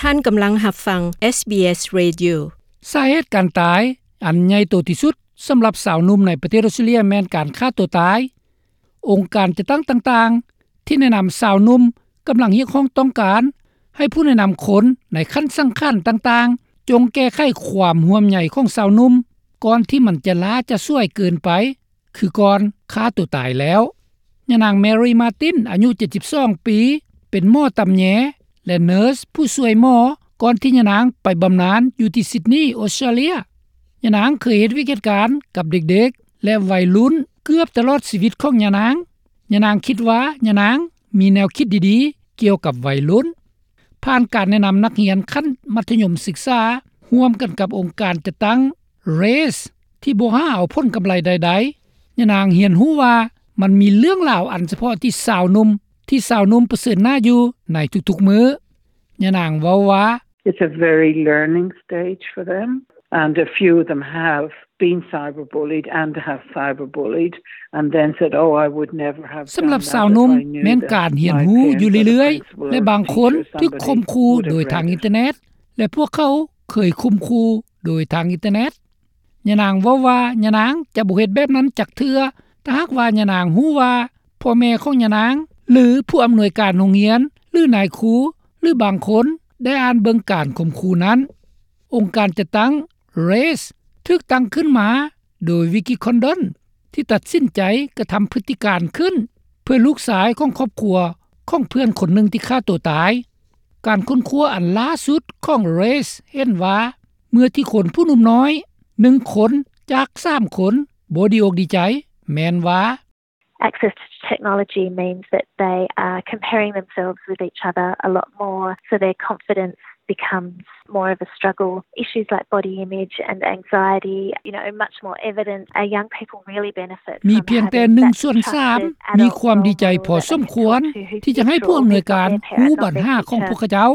ທ່ານກຳລັງຮັບຟັງ SBS Radio. ສາເຫດການຕາຍອັນໃຫຍ່ໂຕທີ່ສຸດສຳລັບຊາວໜຸ່ມໃນປະເທດອອສເຕຣເລັຽແມ່ນການຂ້າຕົວຕາຍ. ອົງການຈັດຕັ້ງຕ່າງໆທີ່ແນະນຳຊາວໜຸ່ມກຳລັງຮຽກຮ້ອງຕ້ອງການໃຫ້ຜູ້ແນະນຳຄົນໃນຂັ້ນສັງຂັນຕ່າງໆ ຈົ່ງແກ້ໄຂຄວາມຫ່ວງໃຍຂອງຊາວໜຸ່ມ ກ່ອນທີ່ມັນຈະລ້າຈະສວຍເກີນໄປ ຄືກ່ອນຂ້າຕົວຕາຍແລ້ວ. ຍານາງ Mary Martin ອາຍຸ ເຈັດສິບສອງ ປີ ເປັນໝໍຕຳແຍ ແລະ ເນີສຜູ້ຊ່ວຍໝໍ ກ່ອນທີ່ຍານາງໄປບຳນານຢູ່ທີ່ Sydney ອອສເຕຣເລັຽ. ຍານາງເຄີຍເຮັດວຽກເຮັດການກັບເດັກໆ ແລະ ໄວລຸ້ນເກືອບຕະຫຼອດຊີວິດຂອງຍານາງ. ຍານາງຄິດວ່າຍານາງມີແນວຄິດດີໆກ່ຽວກັບໄວລຸ້ນ. ຜ່ານການແນະນຳນັກຮຽນຂັ້ນມັດທະຍົມສຶກສາ ຮ່ວມກັນກັບອົງການຈັດຕັ້ງ RAISE ທີ່ບໍ່ຫາເອົາຜົນກຳໄລໃດໆ, ຍານາງຮຽນຮູ້ວ່າມັນມີເລື່ອງລາວອັນສະເພາະທີ່ຊາວໜຸ່ມ, ທີ່ຊາວໜຸ່ມປະເຊີນໜ້າຢູ່ໃນທຸກໆມື້. ຍານາງເວົ້າວ່າ It's a very learning stage for them, and a few of them have been cyberbullied and have cyberbullied and then said, "Oh, I would never have done that if I knew that my parents or the principal or teacher or somebody would have done it." ສຳລັບຊາວໜຸ່ມແມ່ນການຮຽນຮູ້ຢູ່ເລື້ອຍໆ ແລະ ບາງຄົນຖືກຂົ່ມຂູ່ໂດຍທາງອິນເຕີເນັດ ແລະ ພວກເຂົາເຄີຍຂົ່ມຂູ່ໂດຍທາງອິນເຕີເນັດ. ຍານາງເວົ້າວ່າ ຍານາງຈະບໍ່ເຮັດແບບນັ້ນຈັກເທື່ອ ຖ້າຫາກວ່າຍານາງຮູ້ວ່າພໍ່ແມ່ຂອງຍານາງ ຫຼື ຜູ້ອຳນວຍການໂຮງຮຽນ ຫຼື ນາຍຄູ ຫຼື ບາງຄົນໄດ້ອ່ານເບິ່ງການຂົ່ມຂູ່ນັ້ນ. ອົງການຈັດຕັ້ງ RAISE ຖືກຕັ້ງຂຶ້ນມາໂດຍ Vicky Condon ທີ່ຕັດສິນໃຈກະທຳພຶດຕິການຂຶ້ນ ເພື່ອລູກຊາຍຂອງຄອບຄົວຂອງເພື່ອນຄົນໜຶ່ງທີ່ຂ້າຕົວຕາຍ. ການຄົ້ນຄວ້າອັນລ່າສຸດຂອງ RAISE ເຫັນວ່າ ເມື່ອທີ່ຄົນຜູ້ໜຸ່ມນ້ອຍໜຶ່ງຄົນຈາກສາມຄົນບໍ່ດີອົກດີໃຈ ແມ່ນວ່າ Access to technology means that they are comparing themselves with each other a lot more, so their confidence becomes more of a struggle. Issues like body image and anxiety, you know, much more evident. Our young people really benefit from having that trusted adult role model who they can lean on. ມີພຽງແຕ່ໜຶ່ງສ່ວນສາມມີຄວາມດີໃຈພໍສົມຄວນທີ່ຈະໃຫ້ຜູ້ອຳນວຍການຮູ້ບັນຫາຂອງພວກເຂົາເຈົ້າ.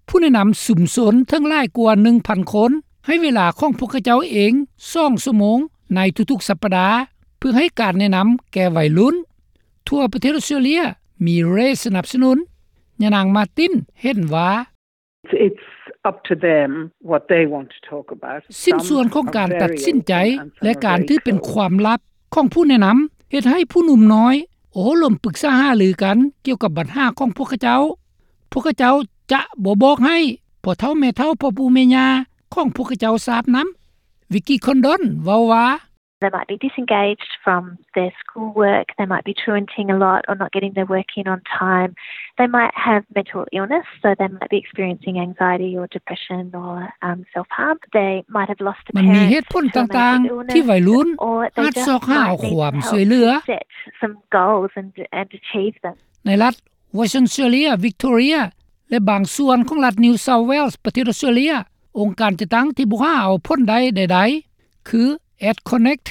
ຜູ້ແນະນຳຊຸມຊົນເຖິງຫຼາຍກວ່າໜຶ່ງພັນຄົນ ໃຫ້ເວລາຂອງພວກເຂົາເຈົ້າເອງສອງຊົ່ວໂມງໃນທຸກໆສັບປະດາ ເພື່ອໃຫ້ການແນະນຳແກ່ໄວລຸ້ນ. ທົ່ວປະເທດອອສເຕຣເລັຽມີ RAISE ສະໜັບສະໜູນ. ຍານາງ Martin ເຫັນວ່າ It's up to them what they want to talk about. ຊິ້ນສ່ວນຂອງການຕັດສິນໃຈ ແລະ ການຖືເປັນຄວາມລັບຂອງຜູ້ແນະນຳ ເຮັດໃຫ້ຜູ້ໜຸ່ມນ້ອຍໂອ້ລົມປຶກສາຫາລືກັນກ່ຽວກັບບັນຫາຂອງພວກເຂົາເຈົ້າ. ພວກເຂົາເຈົ້າຈະບໍ່ບອກໃຫ້ພໍ່ເຖົ້າແມ່ເຖົ້າ ພໍ່ປູ່ແມ່ຍ່າຂອງພວກເຂົາເຈົ້າຊາບນຳ. Vicky Condon ເວົ້າວ່າ They might be disengaged from their schoolwork, they might be truanting a lot or not getting their work in on time. They might have mental illness, so they might be experiencing anxiety or depression or, um, self-harm. They might have lost a parent to a mental illness, or they just might need help to set some goals and, and achieve them. ໃນລັດ Western Australia, Victoria ແລະ ບາງສ່ວນຂອງລັດ New South Wales ປະເທດອອສເຕຣເລັຽ, ອົງການຈັດຕັ້ງທີ່ບໍ່ຫາເອົາຜົນໄດ້ໃດໆ ຄື AdConnect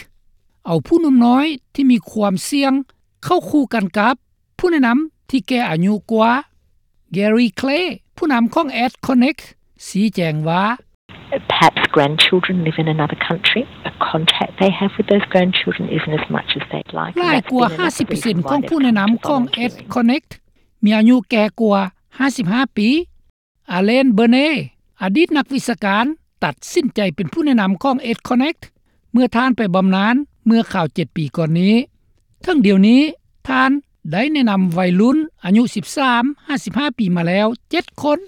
ເອົາຜູ້ໜຸ່ມນ້ອຍທີ່ມີຄວາມສ່ຽງເຂົ້າຄູ່ກັນກັບຜູ້ແນະນຳທີ່ແກ່ອາຍຸກວ່າ. Gary Clay ຜູ້ນຳຂອງ AdConnect ຊີ້ແຈງວ່າ Perhaps grandchildren live in another country. The contact they have with those grandchildren isn't as much as they'd like. ຫຼາຍກວ່າຫ້າສິບເປີເຊັນຂອງຜູ້ແນະນຳຂອງ AdConnect ມີອາຍຸແກ່ກວ່າຫ້າສິບຫ້າປີ. Alan Burney ອະດີດນັກວິຊາການ ຕັດສິນໃຈເປັນຜູ້ແນະນຳຂອງ AdConnect ເມື່ອທ່ານໄປບຳນານເມື່ອຄາວເຈັດປີກ່ອນນີ້. ເຖິງດຽວນີ້ ທ່ານໄດ້ແນະນຳໄວລຸ້ນອາຍຸສິບສາມຫາສິບຫ້າປີມາແລ້ວເຈັດຄົນ.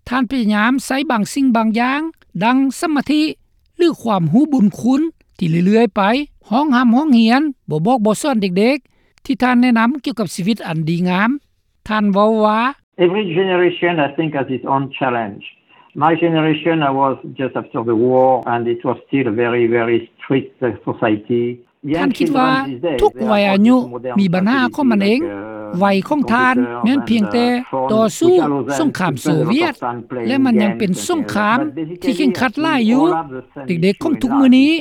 ທ່ານພະຍາຍາມໃຊ້ບາງສິ່ງບາງຢ່າງ ດັ່ງສະມາທິ ຫຼື ຄວາມຮູ້ບຸນຄຸນທີ່ເລື້ອຍໆໄປ ຮ້ອງຮ່ຳຮ້ອງຮຽນ, ບໍ່ບອກບໍ່ສອນເດັກໆ ທີ່ທ່ານແນະນຳກ່ຽວກັບຊີວິດອັນດີງາມ. ທ່ານເວົ້າວ່າ Every generation, I think, has its own challenge. My generation, I was just after the war, and it was still a very, very strict, uh, society. ທ່ານຄິດວ່າທຸກໄວອາຍຸມີບັນຫາຂອງມັນເອງ. ໄວຂອງທ່ານແມ່ນພຽງແຕ່ຕໍ່ສູ້ສົງຄາມໂຊວຽດ ແລະ ມັນຍັງເປັນສົງຄາມທີ່ເຄັ່ງຄັດຫຼາຍຢູ່. ເດັກໆຂອງທຸກມື້ນີ້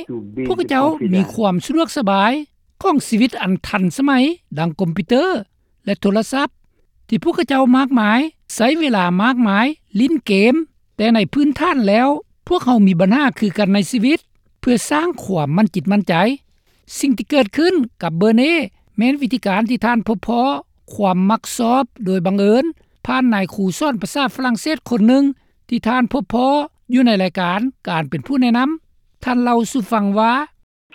ພວກເຂົາເຈົ້າມີຄວາມສະດວກສະບາຍຂອງຊີວິດອັນທັນສະໄໝ ດັ່ງຄອມພິວເຕີ ແລະ ໂທລະສັບ ທີ່ພວກເຂົາເຈົ້າມາກມາຍ ໃຊ້ເວລາມາກມາຍຫຼິ້ນເກມ, ແຕ່ໃນພື້ນຖານແລ້ວ ພວກເຮົາມີບັນຫາຄືກັນໃນຊີວິດ ເພື່ອສ້າງຄວາມໝັ້ນຈິດໝັ້ນໃຈ. ສິ່ງທີ່ເກີດຂຶ້ນກັບເບີເນ ແມ່ນວິທີການທີ່ທ່ານພົບພໍ້ຄວາມມັກຊອບໂດຍບັງເອີນ ຜ່ານນາຍຄູສອນພາສາຝຣັ່ງເສດຄົນໜຶ່ງ ທີ່ທ່ານພົບພໍ້ຢູ່ໃນລາຍການການເປັນຜູ້ແນະນຳ. ທ່ານເລົ່າສູ່ຟັງວ່າ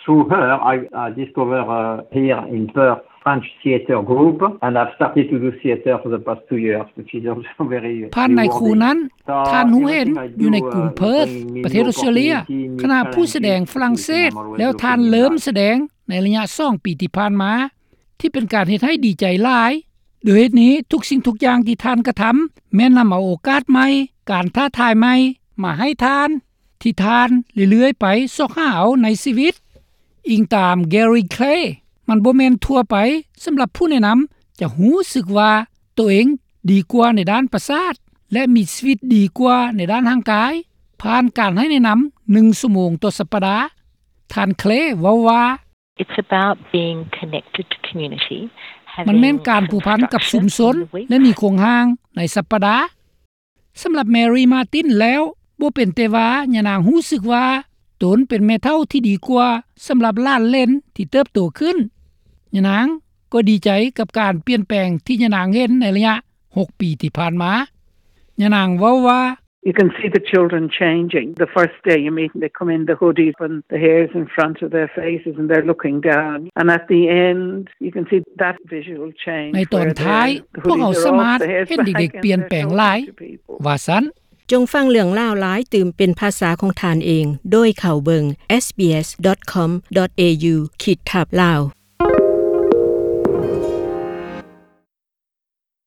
Through her, I, I discovered, uh, here in Perth, French theatre group, and I've started to do theatre for the past two years, which is also very rewarding. ຜ່ານນາຍຄູນັ້ນ ທ່ານຮູ້ເຫັນຢູ່ໃນກຸງເພີດ ປະເທດອອສເຕຣເລຍ ຄະນະຜູ້ສະແດງຝຣັ່ງເສດ ແລ້ວທ່ານເລີ່ມສະແດງໃນໄລຍະສອງປີທີ່ຜ່ານມາ ທີ່ເປັນການເຮັດໃຫ້ດີໃຈຫຼາຍ. ໂດຍເຫດນີ້ ທຸກສິ່ງທຸກຢ່າງທີ່ທ່ານກະທຳ ແມ່ນນຳເອົາໂອກາດໃໝ່, ການທ້າທາຍໃໝ່ມາໃຫ້ທ່ານ ທີ່ທ່ານເລື້ອຍໆໄປຊອກຫາເອົາໃນຊີວິດ. ອີງຕາມ Gary Clay, ມັນບໍ່ແມ່ນທົ່ວໄປສຳລັບຜູ້ແນະນຳຈະຮູ້ສຶກວ່າໂຕເອງດີກວ່າໃນດ້ານປະສາດ ແລະ ມີຊີວິດດີກວ່າໃນດ້ານຮ່າງກາຍ ຜ່ານການໃຫ້ແນະນຳໜຶ່ງຊົ່ວໂມງຕໍ່ສັບປະດາ. ທ່ານ Clay ເວົ້າວ່າ It's about being connected to community, ມັນແມ່ນການຜູກພັນກັບຊຸມຊົນ ແລະ ມີໂຄງຮ່າງໃນສັບປະດາ. ສຳລັບ Mary Martin ແລ້ວ ບໍ່ເປັນແຕ່ວ່າຍານາງຮູ້ສຶກວ່າຕົນເປັນແມ່ເຖົ້າທີ່ດີກວ່າສຳລັບຫຼານເຫຼັນທີ່ເຕີບໂຕຂຶ້ນ, ຍານາງກໍດີໃຈກັບການປ່ຽນແປງທີ່ຍານາງເຫັນໃນໄລຍະຫົກປີທີ່ຜ່ານມາ. ຍານາງເວົ້າວ່າ You can see the children changing. The first day you meet them, they come in the hoodies and the hairs in front of their faces and they're looking down. And at the end, you can see that visual change. ໃນຕອນທ້າຍ ພວກເຮົາສາມາດເຫັນເດັກໆປ່ຽນແປງຫຼາຍ ວ່າຊັ້ນ. ຈົ່ງຟັງເລື່ອງລາວຫຼາຍຕື່ມເປັນພາສາຂອງທ່ານເອງ ໂດຍເຂົ້າເບິ່ງ sbs.com.au ຂີດທັບ Lao.